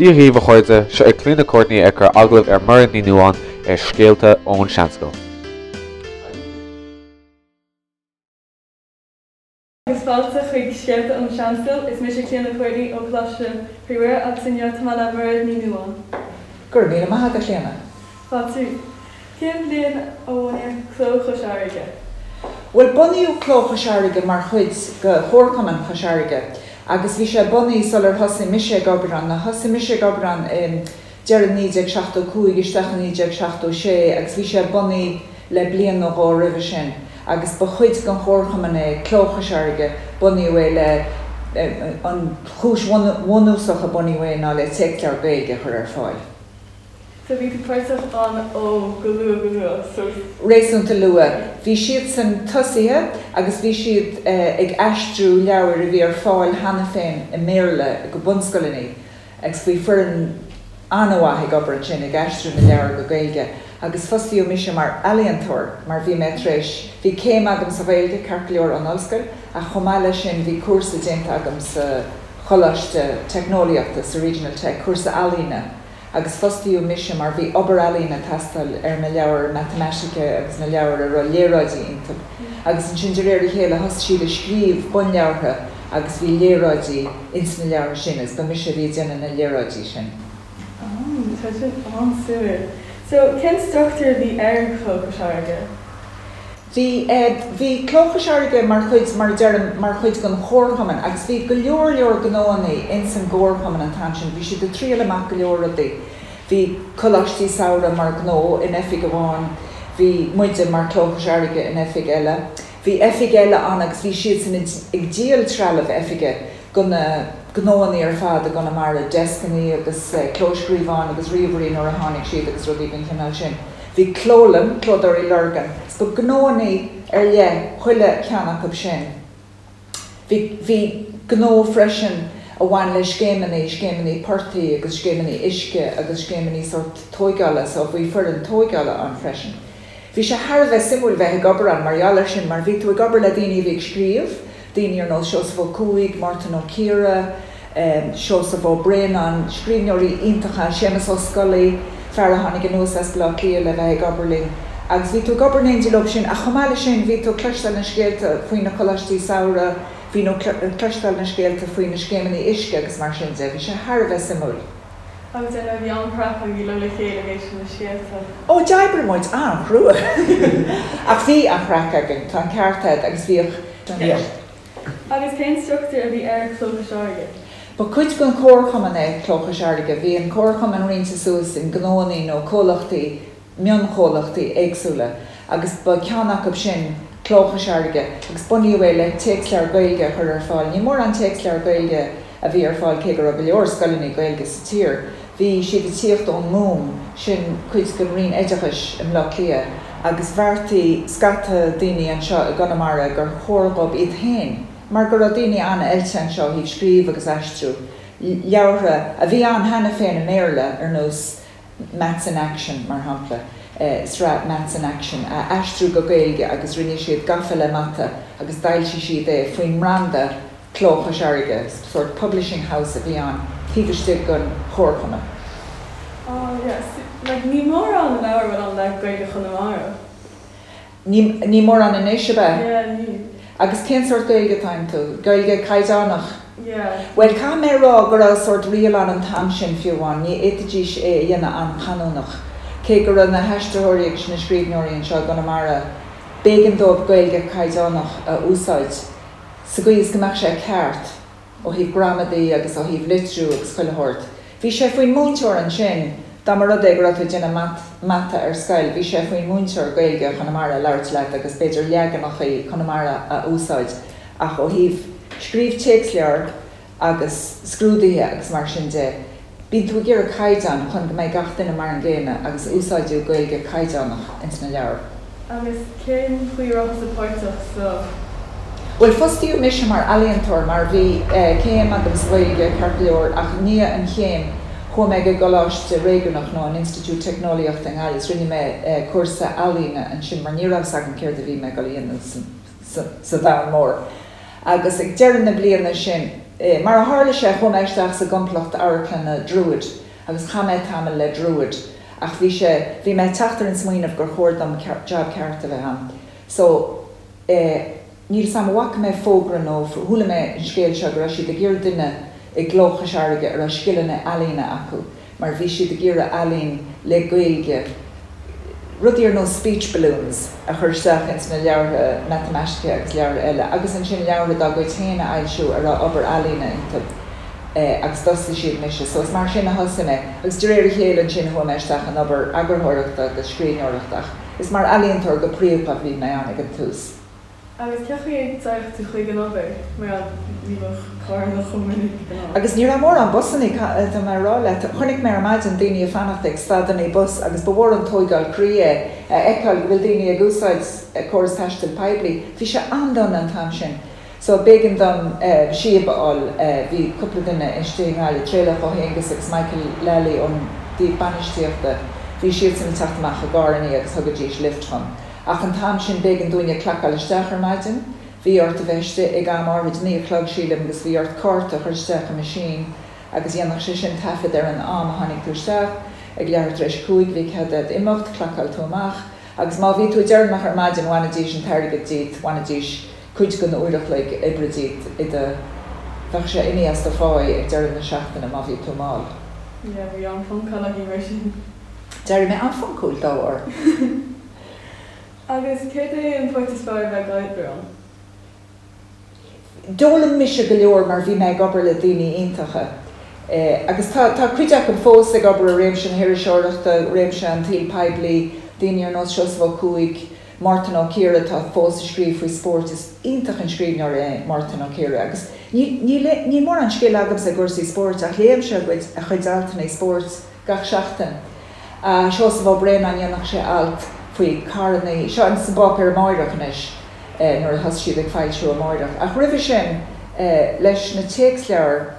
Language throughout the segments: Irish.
Dia dhaoibh a chairde, seo é Clíona Courtney ag cur agallamh ar Mairéad Ní Nuadháin ar Scéalta ón Seanscoil. Agus fáilte chuig Scéalta ón Seanscoil, is mise Clíona Courtney ó Choláiste Chroí Mhuire agus inniu tá mé le Mairéad Ní Nuadháin. Go raibh míle maith agat, a Chlíona. Fáilte. Cén bhliain a bunaíodh Cló Chois Fharraige? Bhuel, bunaíodh Cló Chois Fharraige mar chuid de Chomharchumann Chois Fharraige agus bhí sé bunaithe sular thosaigh mise ag obair ann. Thosaigh mise ag obair ann i deireadh 1975 isteach i 1976 agus bhí sé bunaithe le bliain nó dhó roimhe sin agus ba chuid den Chomharchumann é Cló Chois Fharraige. Bunaíodh é le, an chúis bhunúsach a bunaíodh é ná le téacsleabhair Gaeilge a chur ar fáil. So bhí tú páirteach ann ó go luath go luath so. Réasúnta luath. Bhí siadsan tosaithe agus bhí siad ag aistriú leabhair a bhí ar fáil cheana féin i mBéarla go bunscoileanna agus bhí foireann an-mhaith ag obair ansin ag aistriú na leabhar go Gaeilge agus fostaíodh mise mar ealaíontóir mar bhí mé tar éis, bhí céim agam sa Ghaeilge ceart go leor ón ollscoil ach chomh maith leis sin bhí cúrsa déanta agam sa Choláiste Teicneolaíochta, sa Regional Tech, cúrsa ealaíne. agus fostaíodh mise mar bhí obair ealaíne ag teastáil ar na leabhair matamaitice agus na leabhair a raibh léaráidí iontu. Agus ansin de réir a chéile thosaigh siad ag scríobh bunleabhartha agus bhí léaráidí ins na leabhartha sin agus ba mise a bhí ag déanamh na léaráidí sin. Oh, tá sin an-suimiúil. So, cén struchtúr a bhí ar Chló Chois Fharraige? Bhí, bhí Cló Chois Fharraige mar chuid, mar a deirim, mar chuid den chomharchumann agus bhí go leor leor gnóannaí ins an gcomharchumann an t-am sin, bhí siad ag triail amach go leor rudaí. Bhí coláistí samhraidh mar ghnó in oifig amháin, bhí muide mar Cló Chois Fharraige in oifig eile. Bhí oifig eile ann agus bhí siadsan ag díol trealamh oifige go na gnóannaí ar fad i gConamara, deascannaí agus clóscríobháin agus ríomhairí nuair a tháinig siad agus rudaí den chineál sin. Bhí clólann, Clódóirí Lurgan, 's ba gnóannaí ar leith chuile cheann acu sin. Bhí, bhí gnó freisin a bhain le scéimeannaí, scéimeannaí portaigh agus scéimeannaí uisce agus scéimeannaí sórt tóigeála, so bhí foireann tóigeála ann freisin. Bhí sé thar a bheith suimiúil bheith ag obair ann mar gheall air sin mar bhí tú ag obair le daoine a bhí ag scríobh, daoine ar nós Seosamh Ó Cuaig, Mártan Ó Ciardha, Seosamh Ó Braonáin, scríbhneoirí iontacha, Séamus Ó Scolaí, fear a tháinig anuas as Baile Átha Cliath le bheith ag obair linn. Agus bhí tú ag obair in éindí leo sin ach chomh maith leis sin bhí tú ag cloisteáil na scéalta faoi na coláistí samhraidh, bhí tú ag cloisteáil na scéalta faoi na scéimeanna uisce agus mar sin de. Bhí sé thar a bheith suimiúil. Agus ar ndóigh bhí an-chraic agaibh le chéile ag éisteacht leis na scéalta. Ó, d'oibrigh muid an-chrua! Ach bhí an-chraic againn, tá an ceart agat, agus bhíodh, bhíodh. Agus cén struchtúr a bhí ar Chló Chois Fharraige? Ba chuid den chomharchumann é Cló Chois Fharraige. Bhí an comharchumann roinnte suas in gnóannaí nó comhlachtaí, mionchomhlachtaí éagsúla agus ba ceann acu sin Cló Chois Fharraige agus bunaíodh é le téacsleabhar Gaeilge a chur ar fáil. Ní mórán téacsleabhar Gaeilge a bhí ar fáil cé go raibh go leor scoileanna Gaeilge sa tír. Bhí siad ag tíocht ón nGúm, sin cuid den Roinn Oideachais i mBleá Cliath, agus bheartaigh scata daoine anseo i gConamara gur chóir dhóibh iad féin, mar go raibh daoine an-oilte anseo ó thaobh scríobh agus aistriú leabhartha a bhí ann cheana féin i mBéarla, ar nós Maths in Action, mar shampla, sraith Maths in Action, a aistriú go Gaeilge agus rinne siad Gafa le Mata agus d'fhoilsigh siad é faoin mbranda Cló Chois Fharraige, sórt publishing house a bhí ann taobh istigh den chomharchumann. Ah yes, like ní mórán leabhar a bhfuil ann le Gaeilge Chonamara. Ní, ní mórán anois, ab ea? Yeah, níl. Agus cén sórt Gaeilge atá iontu? Gaeilge caighdeánach? Yeah. Bhuel, caithfidh mé a rá go raibh sórt riail ann an t-am sin fiú amháin, ní fhéadfaidís é a dhéanamh an-chanúnach. Cé go raibh na haistritheoirí agus na scríbhneoirí anseo i gConamara, b'éigean dóibh Gaeilge caighdeánach a úsáid sa gcaoi is go mbeadh sé ceart ó thaobh gramadaí agus ó thaobh litriú agus chuile shórt. Bhí sé faoin múinteoir ansin, dá mba rud é go raibh tú ag déanamh mata ar scoil, bhí sé faoin múinteoir Gaeilge Chonamara a labhairt leat agus b'fhéidir leaganachaí Conamara a úsáid ach ó thaobh scríobh téacsleabhar agus scrúduithe agus mar sin de, bíonn tú ag iarraidh caighdeán chun go mbeidh gach duine mar an gcéanna agus úsáideadh Gaeilge caighdeánach ins na leabhair. Agus cén chaoi a raibh tusa páirteach sa. Bhuel, fostaíodh mise mar ealaíontóir mar bhí céim agam sa Ghaeilge, ceart go leor, ach i ndiaidh an chéim chuaigh mé go gColáiste Réigiúnach nó an Institiúid Teicneolaíochta i nGaillimh is rinne mé cúrsa ealaíne ansin mar ní raibh 's agam céard a bhí mé ag dul a dhéanamh sa domhan mór. Agus ag deireadh na bliana sin. Mar a tharla sé, chuaigh mé isteach sa gcomplacht amharclainne Druid agus chaith mé tamall le Druid ach bhí sé, bhí mé ag teacht ar an smaoineamh gur chóir dom job ceart a bheith a'm. So, eh, níl 's a'm an bhfaca mé fógra nó chuala mé an scéal seo go raibh siad ag iarraidh duine i gCló Chois Fharraige a raibh scileanna ealaíne acu mar bhí siad ag iarraidh ealaín le Gaeilge, rudaí ar nós speech balloons a chur isteach ins na leabhartha matamaitice agus leabhartha eile agus ansin leabhartha dá gcuid féin a fhoilsiú a raibh obair ealaíne iontu agus d'fhostaigh siad mise. So is mar sin a thosaigh mé agus de réir a chéile ansin chuaigh mé isteach in obair eagarthóireachta agus scríbhneoireachta ach is mar ealaíontóir go príomha a bhí mé ann ag an tús. Agus cén chaoi a dtéadh tú chuig an obair, mar ní bheadh carranna chomh minic ag an am? Agus ní raibh mórán busannaí, tá mé a rá leat. Chonaic mé ar maidin daoine ag fanacht ag stadannaí bus agus ba mhór an tóigeáil croí é a fheiceáil go bhfuil daoine ag úsáid córas taistil poiblí. Bhí sé an-dona an t-am sin. So b'éigean dom síob a fháil. Bhí cúpla duine istigh i nGaillimh, Traolach Ó hAonghusa agus Michael Lally ón dtaobh bainistíochta, bhí siadsan ag teacht amach i gcarrannaí agus thugaidís lift dhom. Ach an t-am sin b'éigean dúinne clacáil isteach ar maidin. Bhí ort a bheith istigh ag am áithrid, 9 a chlog sílim, agus bhí ort cárta a chur isteach i machine agus dhéanfadh sé sin taifead ar an am a tháinig tú isteach. Ag leathuair tar éis a cúig bhí cead agat imeacht, clacáil tú amach agus má bhí tú deireanach ar maidin bhainidís an t-airgead díot, bhainidís cuid den uair a chloig oibre díot i do, bheadh sé imithe as do pháí ag deireadh na seachtaine má bhí tú mall. Yeah, bhí an-phoncáil againn mar sin. D'éirigh mé an-phoncúil dá bharr. Agus céard é an pháirt is fearr a bheith ag obair ann? D'fhoghlaim mise go leor mar bhí mé ag obair le daoine iontacha. Agus tá tá cuid acu fós ag obair i réimse na hiriseoireachta, réimse an tsaoil poiblí, daoine ar nós Seosamh Ó Cuaig, Mártan Ó Ciardha atá fós ag scríobh faoi spórt. Is iontach an scríbhneoir é Mártan Ó Ciardha agus níl níl níl mórán scil agamsa i gcúrsaí spóirt ach léimse a gcuid a chuid altanna spóirt gach seachtain. Seosamh Ó Braonáin, dhéanfadh sé alt faoi carrannaí, seo in san bPáipéar Amáireach anois, nuair a thosaigh siad ag foilsiú Amáireach. Ach roimhe sin, leis na téacsleabhair,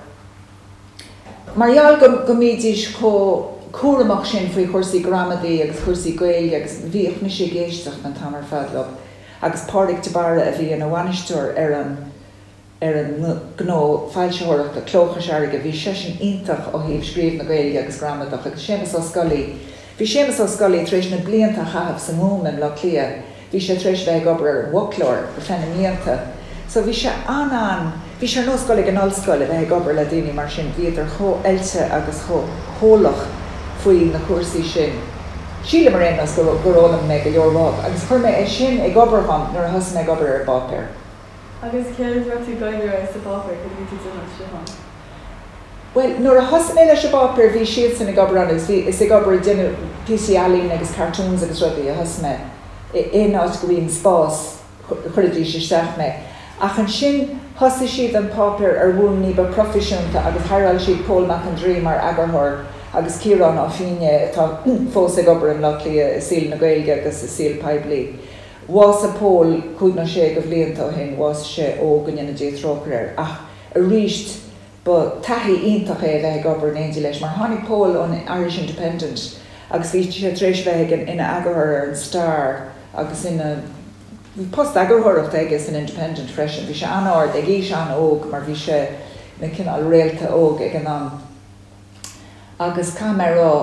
mar gheall go go mbídís chomh cúramach sin faoi chúrsaí gramadaí agus chúrsaí Gaeilge agus bhíodh mise ag éisteacht an t-am ar fad leo agus Pádraig de Barra a bhí ina bhainisteoir ar an ar an ngnó foilsitheoireachta, Cló Chois Fharraige, bhí seisean iontach ó thaobh scríobh na Gaeilge agus gramadach, agus Séamus Ó Scolaí, bhí Séamus Ó Scolaí tar éis na blianta a chaitheamh sa nGúm i mBleá Cliath, bhí sé tar éis a bheith ag obair ar an bhfoclóir ar feadh na mblianta, so bhí sé an-an, bhí sé ar nós dul ag an ollscoil a bheith ag obair le daoine mar sin, bhíodar chomh oilte agus chomh heolach faoi na cúrsaí sin. Sílim ar aon nós gur fhoghlaim mé go leor uathu agus chuir mé é sin ag obair dhom nuair a thosaigh mé ag obair ar an bpáipéar. Agus céard a raibh tú ag obair air sa bpáipéar, céard a bhí tú ag déanamh istigh ann? Bhuel, nuair a thosaigh mé leis an bpáipéar bhí siadsan ag obair ann agus bhí, is ag obair ag déanamh píosaí ealaíne agus cartoons agus rudaí a thosaigh mé. Aon áit go raibh an spás chuiridís isteach mé. Ach ansin thosaigh siad an páipéar ar bhonn ní ba proifisiúnta agus haireáil siad Pól Mac an Draoi mar eagarthóir agus Ciarán Ó Fínné atá fós ag obair i mBleá Cliath i saol na Gaeilge agus i saol poiblí. Bhásaigh Pól cúig nó sé de bhlianta ó shin, bhásaigh sé óg, go ndéana Dia trócaire air, ach aríst ba taithí iontach é a bheith ag obair in éindí leis, mar tháinig Pól ón Irish Independent agus bhí sé tar éis a bheith ag ina eagarthóir ar an Star agus ina, bhí post eagarthóireachta aige san Independent freisin, bhí sé an-ard ag aois an-óg mar bhí sé ina cineál réalta óg ag an am. Agus caithfidh mé a rá,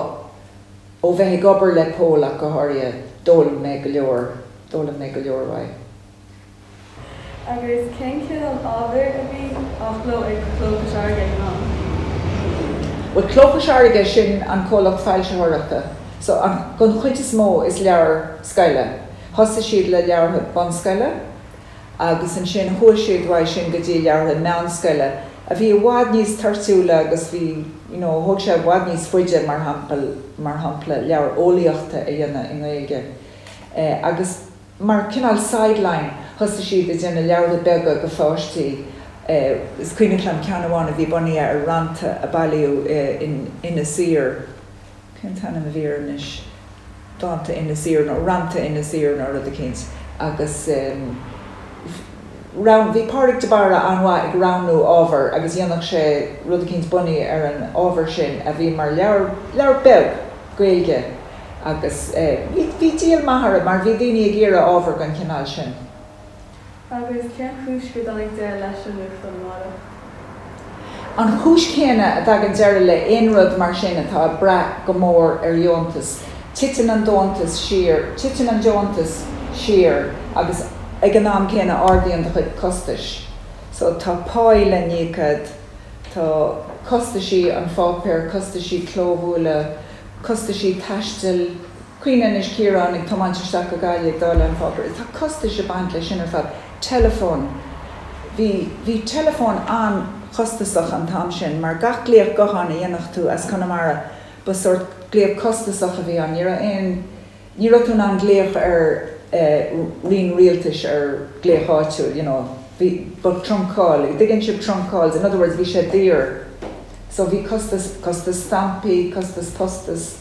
ó bheith ag obair le Pól ach go háirithe, d'fhoghlaim mé go leor, d'fhoghlaim mé go leor uaidh. Agus cén cineál ábhair a bhí á chló ag Cló Chois Fharraige ag an am? Bhuel, Cló Chois Fharraige, sin an comhlacht foilsitheoireachta. So, an, don chuid is mó is leabhair scoile. Thosaigh siad le leabhartha bunscoile. agus ansin chuaigh siad uaidh sin go dtí leabhartha meánscoile, a bhí i bhfad níos toirtiúla agus bhí, you know, thóg sé i bhfad níos faide, mar shampla, mar shampla, leabhar eolaíochta a dhéanamh i nGaeilge. Agus mar cineál sideline, thosaigh siad ag déanamh leabhartha beaga do pháistí. Is cuimhneach liom ceann amháin a bhí bunaithe ar rannta a bailíodh in Inis Oírr. Cén t-ainm a bhí air anois? Dánta Inis Oírr nó Rannta Inis Oírr nó rud eicínt. Agus rogh, bhí Pádraig de Barra an-mhaith ag roghnú ábhar agus dhéanfadh sé rud eicínt bunaithe ar an ábhar sin a bhí mar leabhar, leabhar beag Gaeilge agus bhí, bhí díol maith orthu mar bhí daoine ag iarraidh ábhar den chineál sin. Agus cén chúis gur dtáinig deireadh leis an nuachtán Amárach? An chúis chéanna a dtagann deireadh le aon rud mar sin atá ag brath go mór ar dheontas, titeann an deontas siar, titeann an deontas siar agus ag an am céanna ardaíonn do chuid costais. So tá páí le n-íoc a'd, tá costaisí an pháipéir, costaisí clóbhualadh, costaisí taistil, Cuimhnigh anois Ciarán ag tiomáint isteach go Gaillimh ag dáileadh an pháipéir. Tá costais ag baint leis sin ar fad. Teileafón. Bhí, bhí teileafón an-chostasach an t-am sin mar gach glaoch gutháin a dhéanfadh tú as Conamara ba sórt glaoch costasach a bhí ann. Ní raibh aon, ní raibh tú in ann glaoch ar eh roinn rialtais ar glaoch áitiúil, you know. Bhí, ba trunk call, dtuigeann sibh trunk calls, in other words bhí sé daor. So bhí costas, costas stampaí, costas postais.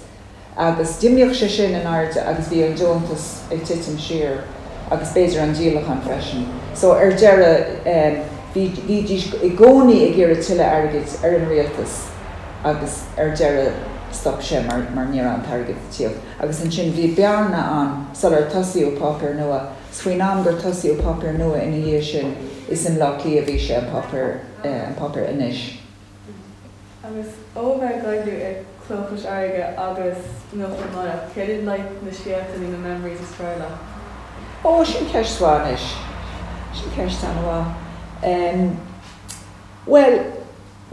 Agus d'imíodh sé sin in airde agus bhí an deontas ag titim siar agus b'fhéidir an díolachán freisin. So ar deireadh bhí, bhídís i gcónaí ag iarraidh tuilleadh airgid ar an rialtas agus ar deireadh stop sé mar, mar ní raibh an t-airgead ag tíocht. Agus ansin bhí bearna ann sular tosaíodh páipéar nua. 'S faoin am gur tosaíodh páipéar nua ina dhiaidh sin is i mBleá Cliath a bhí sé, an páipéar, an páipéar Anois. Agus ó bheith ag oibriú i Cló Chois Fharraige agus Nuacht Amárach, céard iad like na scéalta nó na memories is fearr leat? Ó, sin ceist mhaith anois. Sin ceist an-mhaith. Em, bhuel,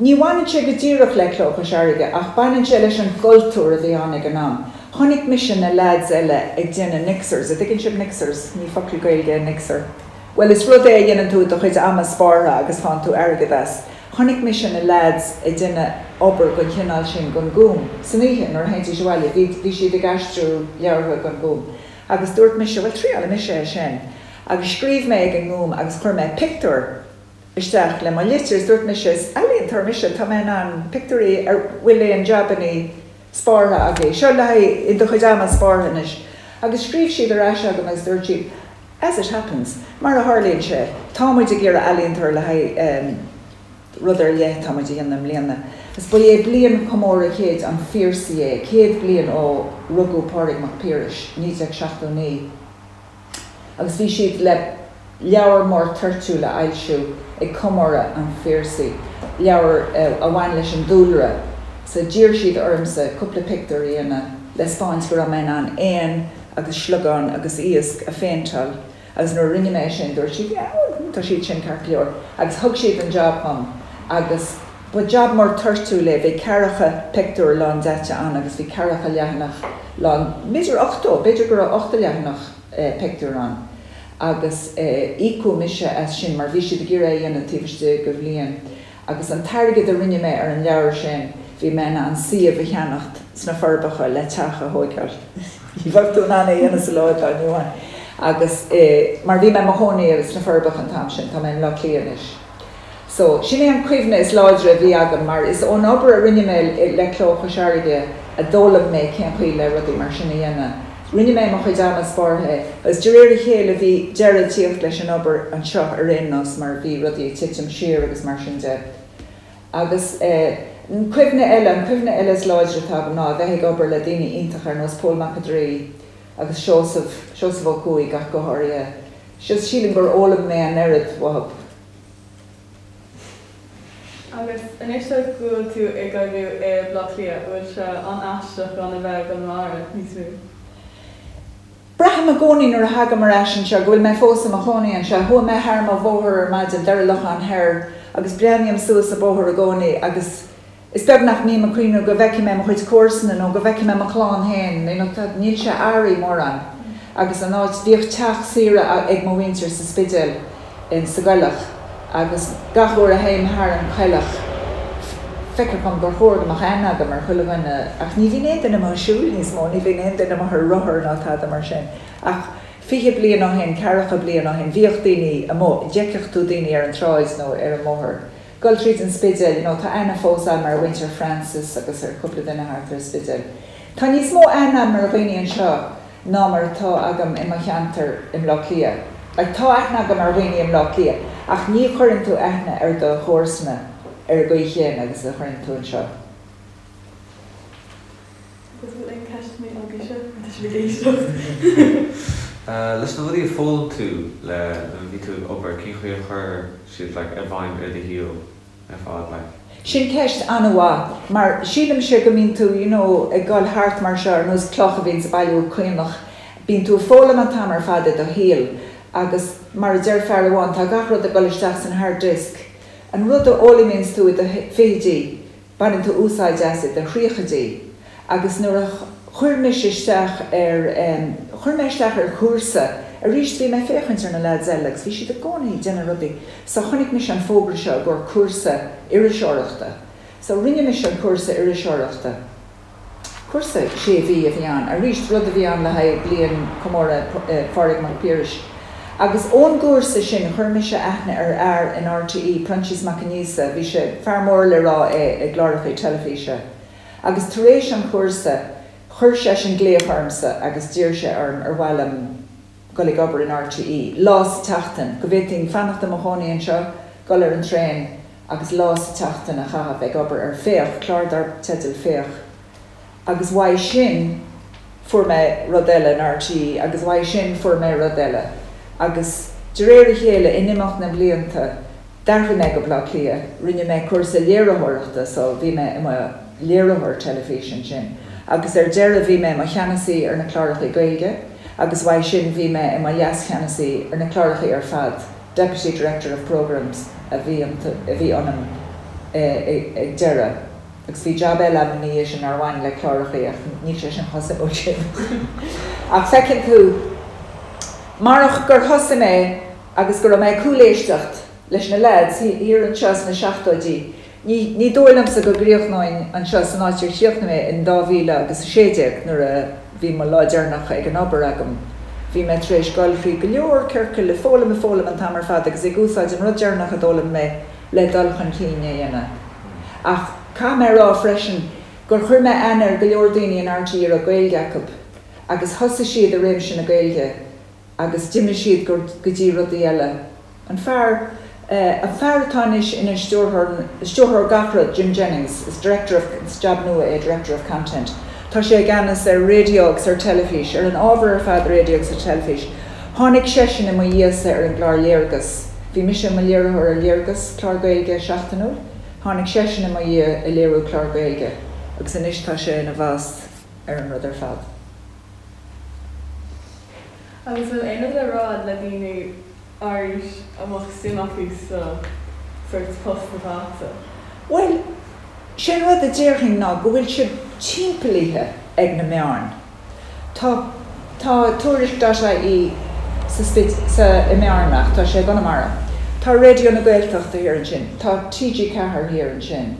ní bhaineann sé go díreach le Cló Chois Fharraige ach baineann sé leis an gcultúr a bhí ann ag an am. Chonaic mise na leaids eile ag déanamh mixers, a' dtuigeann sibh mixers? Ní focal Gaeilge é mixer. Bhuel, is rud é a dhéanann tú i do chuid ama spártha agus faigheann tú airgead as. Chonaic mise na leaids ag déanamh obair den chineál sin don Gúm, san oíche nuair a théidís abhaile, bhí, bhí siad ag aistriú leabhartha don Ghúm. Agus dúirt mise, bhuel, triálfaidh mise é sin. Agus scríobh mé ag an nGúm agus chuir mé pictiúr isteach le mo litir is dúirt mise, is ealaíontóir mise, tá mé in ann pictiúirí, an bhfuil aon jabannaí spártha agaibh? Seo le haghaidh i do chuid ama spártha anois. Agus scríobh siad ar ais agam agus dúirt siad, As it happens, mar a tharlaíonn sé, tá muid ag iarraidh ealaíontóir le haghaidh rud ar leith atá muid a dhéanamh i mbliana. Is ba é bliain chomóradh chéid an Phiarsaigh é, 100 bliain ó rugadh Pádraig Mac Piarais, 1979, agus bhí siad le leabhar mór toirtiúil a fhoilsiú ag comóradh an Phiarsaigh, leabhar a bhain leis an dúlra. So d'iarr siad ormsa cúpla pictiúr a dhéanamh le 'spáint go raibh mé in ann éan agus sliogán agus iasc a phéinteáil agus nuair a rinne mé é sin dúirt siad yeah bhuel tá siad sin ceart go leor agus thug siad an job dhom agus ba job mór toirtiúil é, bhí ceathracha pictiúr lándaite ann agus bhí ceathracha leathanach lán, b'fhéidir 80, b'fhéidir go raibh 80 leathanach pictiúr ann agus íocadh mise as sin mar bhí siad ag iarraidh é a dhéanamh taobh istigh de bhliain. Agus an t-airgead a rinne mé ar an leabhar sin, bhí mé in ann suíomh a cheannacht sna Forbacha le teach a thóigeáil. Ní bheadh tú in ann é a dhéanamh sa lá atá inniu ann. Agus mar bhí mé i mo chónaí sna Forbacha an t-am sin, tá mé i mBleá Cliath anois. So, sin é an cuimhne is láidre a bhí agam mar is ón obair a rinne mé le Cló Chois Fharraige a d'fhoghlaim mé cén chaoi le rudaí mar sin a dhéanamh. Rinne mé i mo chuid ama spártha é agus de réir a chéile bhí deireadh ag tíocht leis an obair anseo ar aon nós mar bhí rudaí ag titim siar agus mar sin de. Agus an cuimhne eile, an cuimhne eile is láidre atá agam ná a bheith ag obair le daoine iontacha ar nós Pól Mac an Draoi agus Seosamh, Seosamh Ó Cuaig ach go háirithe. Just sílim gur fhoghlaim mé an oiread uathu. Agus anois go bhfuil tú ag oibriú i mBleá Cliath, an bhfuil sé an-aisteach gan a bheith i gConamara níos mó? Braithim i gcónaí nuair a thagaim ar ais anseo go bhfuil mé fós i mo chónaí anseo. Chuaigh mé thar mo bhóthar ar maidin, Doire Locháin Thoir, agus breathnaím suas an bóthar i gcónaí agus Is beag nach mbím ag cuimhneamh go bhfeicfidh mé mo chuid comharsana nó go bhfeicfidh mé mo chlann féin, you know, tá, níl sé athraithe mórán. Agus an áit, bhíodh teach saoire ag mo mhuintir sa Spidéal, in, sa gcoileach, agus gach uair a théim thar an choileach, feictear dhom gur chóir go mbeadh aithne agam ar chuile dhuine, ach ní bhíonn aon duine amuigh ag siúl níos mó, ní bhíonn aon duine amuigh ar rothar ná tada mar sin. Ach 20 bliain ó shin, ceathracha bliain ó shin, bhíodh daoine amuigh, d'fheicfeadh tú daoine ar an tsráid nó ar an mbóthar. Dul tríd an Spidéal, you know, tá aithne fós agam ar mhuintir Francis agus ar chúpla duine thart ar an Spidéal. Tá níos mó aithne agam ar dhaoine anseo ná mar atá agam i mo cheantar i mBleá Cliath. Like, tá aithne agam ar dhaoine i mBleá Cliath ach ní chuireann tú aithne ar do chomharsana ar an gcaoi chéanna agus a chuireann tú anseo. Agus bhfuil aon ceisteanna agaibhse? Tá sibh ag éisteacht. Leis na rudaí a foghlaim tú le nuair a bhí tú ag obair, cén chaoi a chuir siad like i bhfeidhm ar do shaol ar fad like? Sin ceist an-mhaith, mar sílimse go mbíonn tú, you know, ag dul thart mar seo ar nós cloch a bhíonns ag bailiú caonach, bíonn tú ag foghlaim an t-am ar fad i do shaol agus mar a deir fear amháin, tá gach rud ag dul isteach san hard disk. An rud a fhoghlaimíonns tú i do fichidí, baineann tú úsáid as i do thríochaidí. Agus nuair a chuir mise isteach ar, chuir mé isteach ar chúrsa, arís bhí mé ag féachaint ar na lads eile agus bhí siad i gcónaí ag déanamh rudaí, so chonaic mise an fógra seo i gcomhair cúrsa iriseoireachta. So rinne mise an cúrsa iriseoireachta. Cúrsa sé mhí a bhí ann, arís rud a bhí ann le haghaidh bliain comóradh Phádraig Mac Piarais. Agus ón gcúrsa sin chuir mise aithne ar fhear in RTÉ, Proinsias Mac Aonghusa, bhí sé, fear mór le rá é i gcláracha teilifíse. Agus tar éis an chúrsa chuir seisean glaoch ormsa agus d'iarr sé orm ar mhaith liom dul ag obair in RTÉ, lá sa tseachtain, go bhféadfainn fanacht i mo chónaí anseo, dul ar an traein agus lá sa tseachtain a chaitheamh ag obair ar Féach, clár dar teideal Féach. Agus uaidh sin fuair mé rud eile in RTÉ agus uaidh sin fuair mé rud eile. Agus de réir a chéile, in imeacht na mblianta, D'athraigh mé go Baile Átha Cliath, rinne mé cúrsa léiritheoireachta so bhí mé i mo léiritheoir teilifíse ansin agus ar deireadh bhí mé i mo cheannasaí ar na cláracha Gaeilge agus uaidh sin bhí mé i mo leascheannasaí ar na cláracha ar fad, Deputy Director of Programmes a bhí a bhí ionam ag deireadh. Agus bhí jab eile agam ina dhiaidh sin nár bhain le cláracha ach níl sé sin chomh suimiúil sin. Ach feiceann tú, marach gur thosaigh mé agus go raibh mé ag cúléisteacht leis na leaids thiar anseo sna seachtóidí. Ní, ní dóigh liomsa go gcríochnóinn anseo san áit ar chríochnaigh mé in 2016 nuair a bhí mo lá deireanach ag an obair agam. Bhí mé tar éis dul thrí go leor ciorcail, ag foghlaim, ag foghlaim an t-am ar fad agus ag úsáid an rud deireanach a d'fhoghlaim mé le dul chun cinn a dhéanamh. Ach caithfidh mé a rá freisin gur chuir mé aithne ar go leor daoine in RTÉ a raibh Gaeilge acu agus thosaigh siad i réimse na Gaeilge agus d'imigh siad go dtí rudaí eile. An fear, an fear atá anois ina stiúrthóir, stiúrthóir gach rud, Jim Jennings, is director of, is jab nua é, director of content. Tá sé i gceannas ar raidió agus ar teilifís, ar an ábhar ar fad raidió agus ar teilifís. Tháinig seisean i mo dhiaidhsa ar an gclár Léargas. Bhí mise i mo léiritheoir ar Léargas, clár Gaeilge seachtainiúil. Tháinig seisean i mo dhiaidh ag léiriú clár Gaeilge agus anois tá sé ina bhoss ar an rud ar fad. Agus an bhfuil aon rud le rá le daoine ár aois a mbeadh suim acu sa sórt post atá agatsa? Bhuel, sé an rud a déarfainn ná go bhfuil sibh timpeallaithe ag na meáin. Tá, tá Tuairisc dot ie sa Spid, sa, i mBearna ach tá sé i gConamara. Tá Raidió na Gaeltachta thiar ansin, tá TG4 thiar ansin.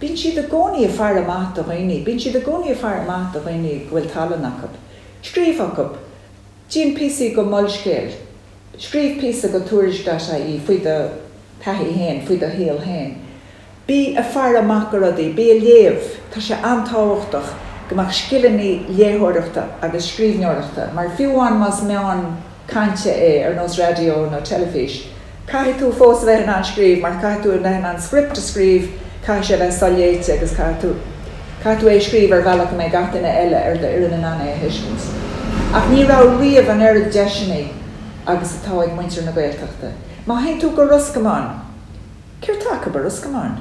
Bíonn siad i gcónaí ag faire amach do dhaoine, bíonn siad i gcónaí ag faire amach do dhaoine go bhfuil tallann acu. Scríobh chucu. Déan píosaí go Molscéal. Scríobh píosa go Tuairisc dot ie faoi do thaithí fhéin, faoi do shaol fhéin. Bí ag faire amach go rudaí, bí ag léamh. Tá sé an-tábhachtach go mbeadh scileanna léitheoireachta agus scríbhneoireachta, mar fiú amháin más meán cainte é ar nós raidió nó teilifís, Caithfidh tú fós a bheith in ann scríobh mar caithfidh tú a bheith in ann script a scríobh, caithfidh sé a bheith soléite agus caithfidh tú, caithfidh tú é a scríobh ar bhealach go mbeidh gach duine eile ar d'fhoireann in ann é a thuiscint. Ach ní raibh riamh an oiread deiseanna agus atá ag muintir na Gaeltachta. Má théann tú go Ros Comáin, céard tá acu i Ros Comáin?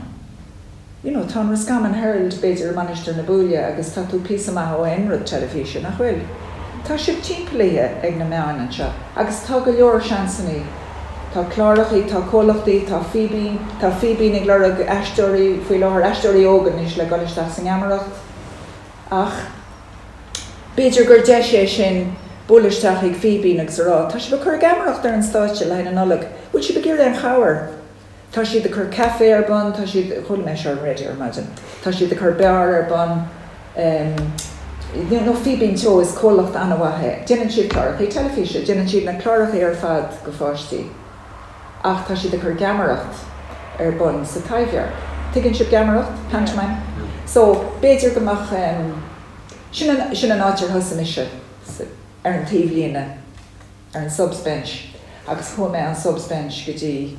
You know, tá an Roscommon Herald, b'fhéidir, i Mainistir na Buaile agus tá tú píosa maith ó aon rud teilifíse, nach bhfuil? Tá sibh timpeallaithe ag na meáin anseo agus tá go leor seansannaí. Tá clárachaí, tá comhlachtaí, tá Fíbín, tá Fíbín ag lorg aisteoirí faoi láthair, aisteoirí óga anois le dul isteach sa ngeamaireacht. Ach b'fhéidir gur deis é sin bualadh isteach chuig Fíbín agus a rá, tá sibh ag cur geamaireacht ar an stáitse le haghaidh na Nollag, bhfuil sibh ag iarraidh aon chabhair? Tá siad ag cur caife ar bun, tá siad, chuala mé seo ar an raidió ar maidin, tá siad ag cur beár ar bun, nó Fíbín Teo, is comhlacht an-mhaith é. Déanann siad clárachaí teilifíse, déanann siad na clárachaí ar fad go pháistí, ach tá siad ag cur geamaireacht ar bun sa Taibhdhearc. Tuigeann sibh geamaireacht? Pantomime? So, b'fhéidir go mbeadh, sin an, sin an áit ar thosaigh mise, ar an taobhlíne. ar an subs bench agus chuaigh mé ón subs bench go dtí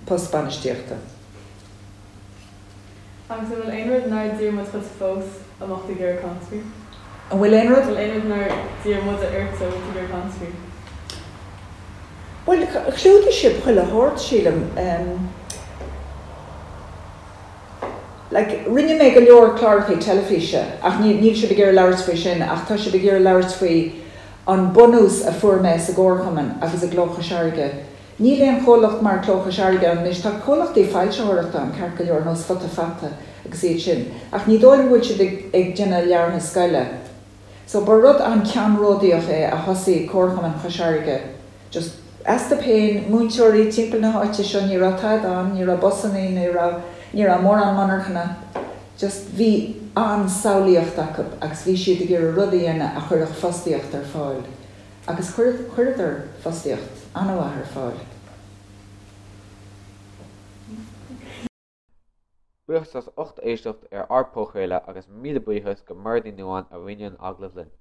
post bainistíochta. Agus an bhfuil aon rud nár d'iarr muid dhuit fós a mbeadh tú ag iarraidh caint faoi? An bhfuil aon rud? An bhfuil aon rud nár d'iarr muide ort a bhfuil tú ag iarraidh caint faoi? Bhuel, chlúdaigh sibh chuile shórt, sílim. Like, rinne mé go leor cláracha teilifíse ach níl, níl sibh ag iarraidh labhairt faoi sin ach tá sibh ag iarraidh labhairt faoi an bunús a fuair mé sa gcomharchumann agus i gCló Chois Fharraige. Níl aon chomhlacht mar Cló Chois Fharraige ann anois. Tá comhlachtaí foilsitheoireachta ann ceart go leor, nós Futa Fata agus iad sin, ach ní dóigh liom go bhfuil siad ag, ag déanamh leabhartha scoile. So ba rud an-ceannródaíoch é a thosaigh Comharchumann Chois Fharraige. Just astu féin, múinteoirí timpeall na háite seo, ní raibh tada ann, ní raibh busannaí, ní raibh, ní raibh mórán monarchana, just bhí an-samhlaíocht acu agus bhí siad ag iarraidh rud a dhéanamh a chuirfeadh fostaíocht ar fáil. Agus chuir, chuireadar fostaíocht an-mhaith ar fáil. Buíochas as ucht éisteacht ar ár bpodchraoladh agus míle buíochas go Mairéad Ní Nuadháin a rinne an agallamh linn.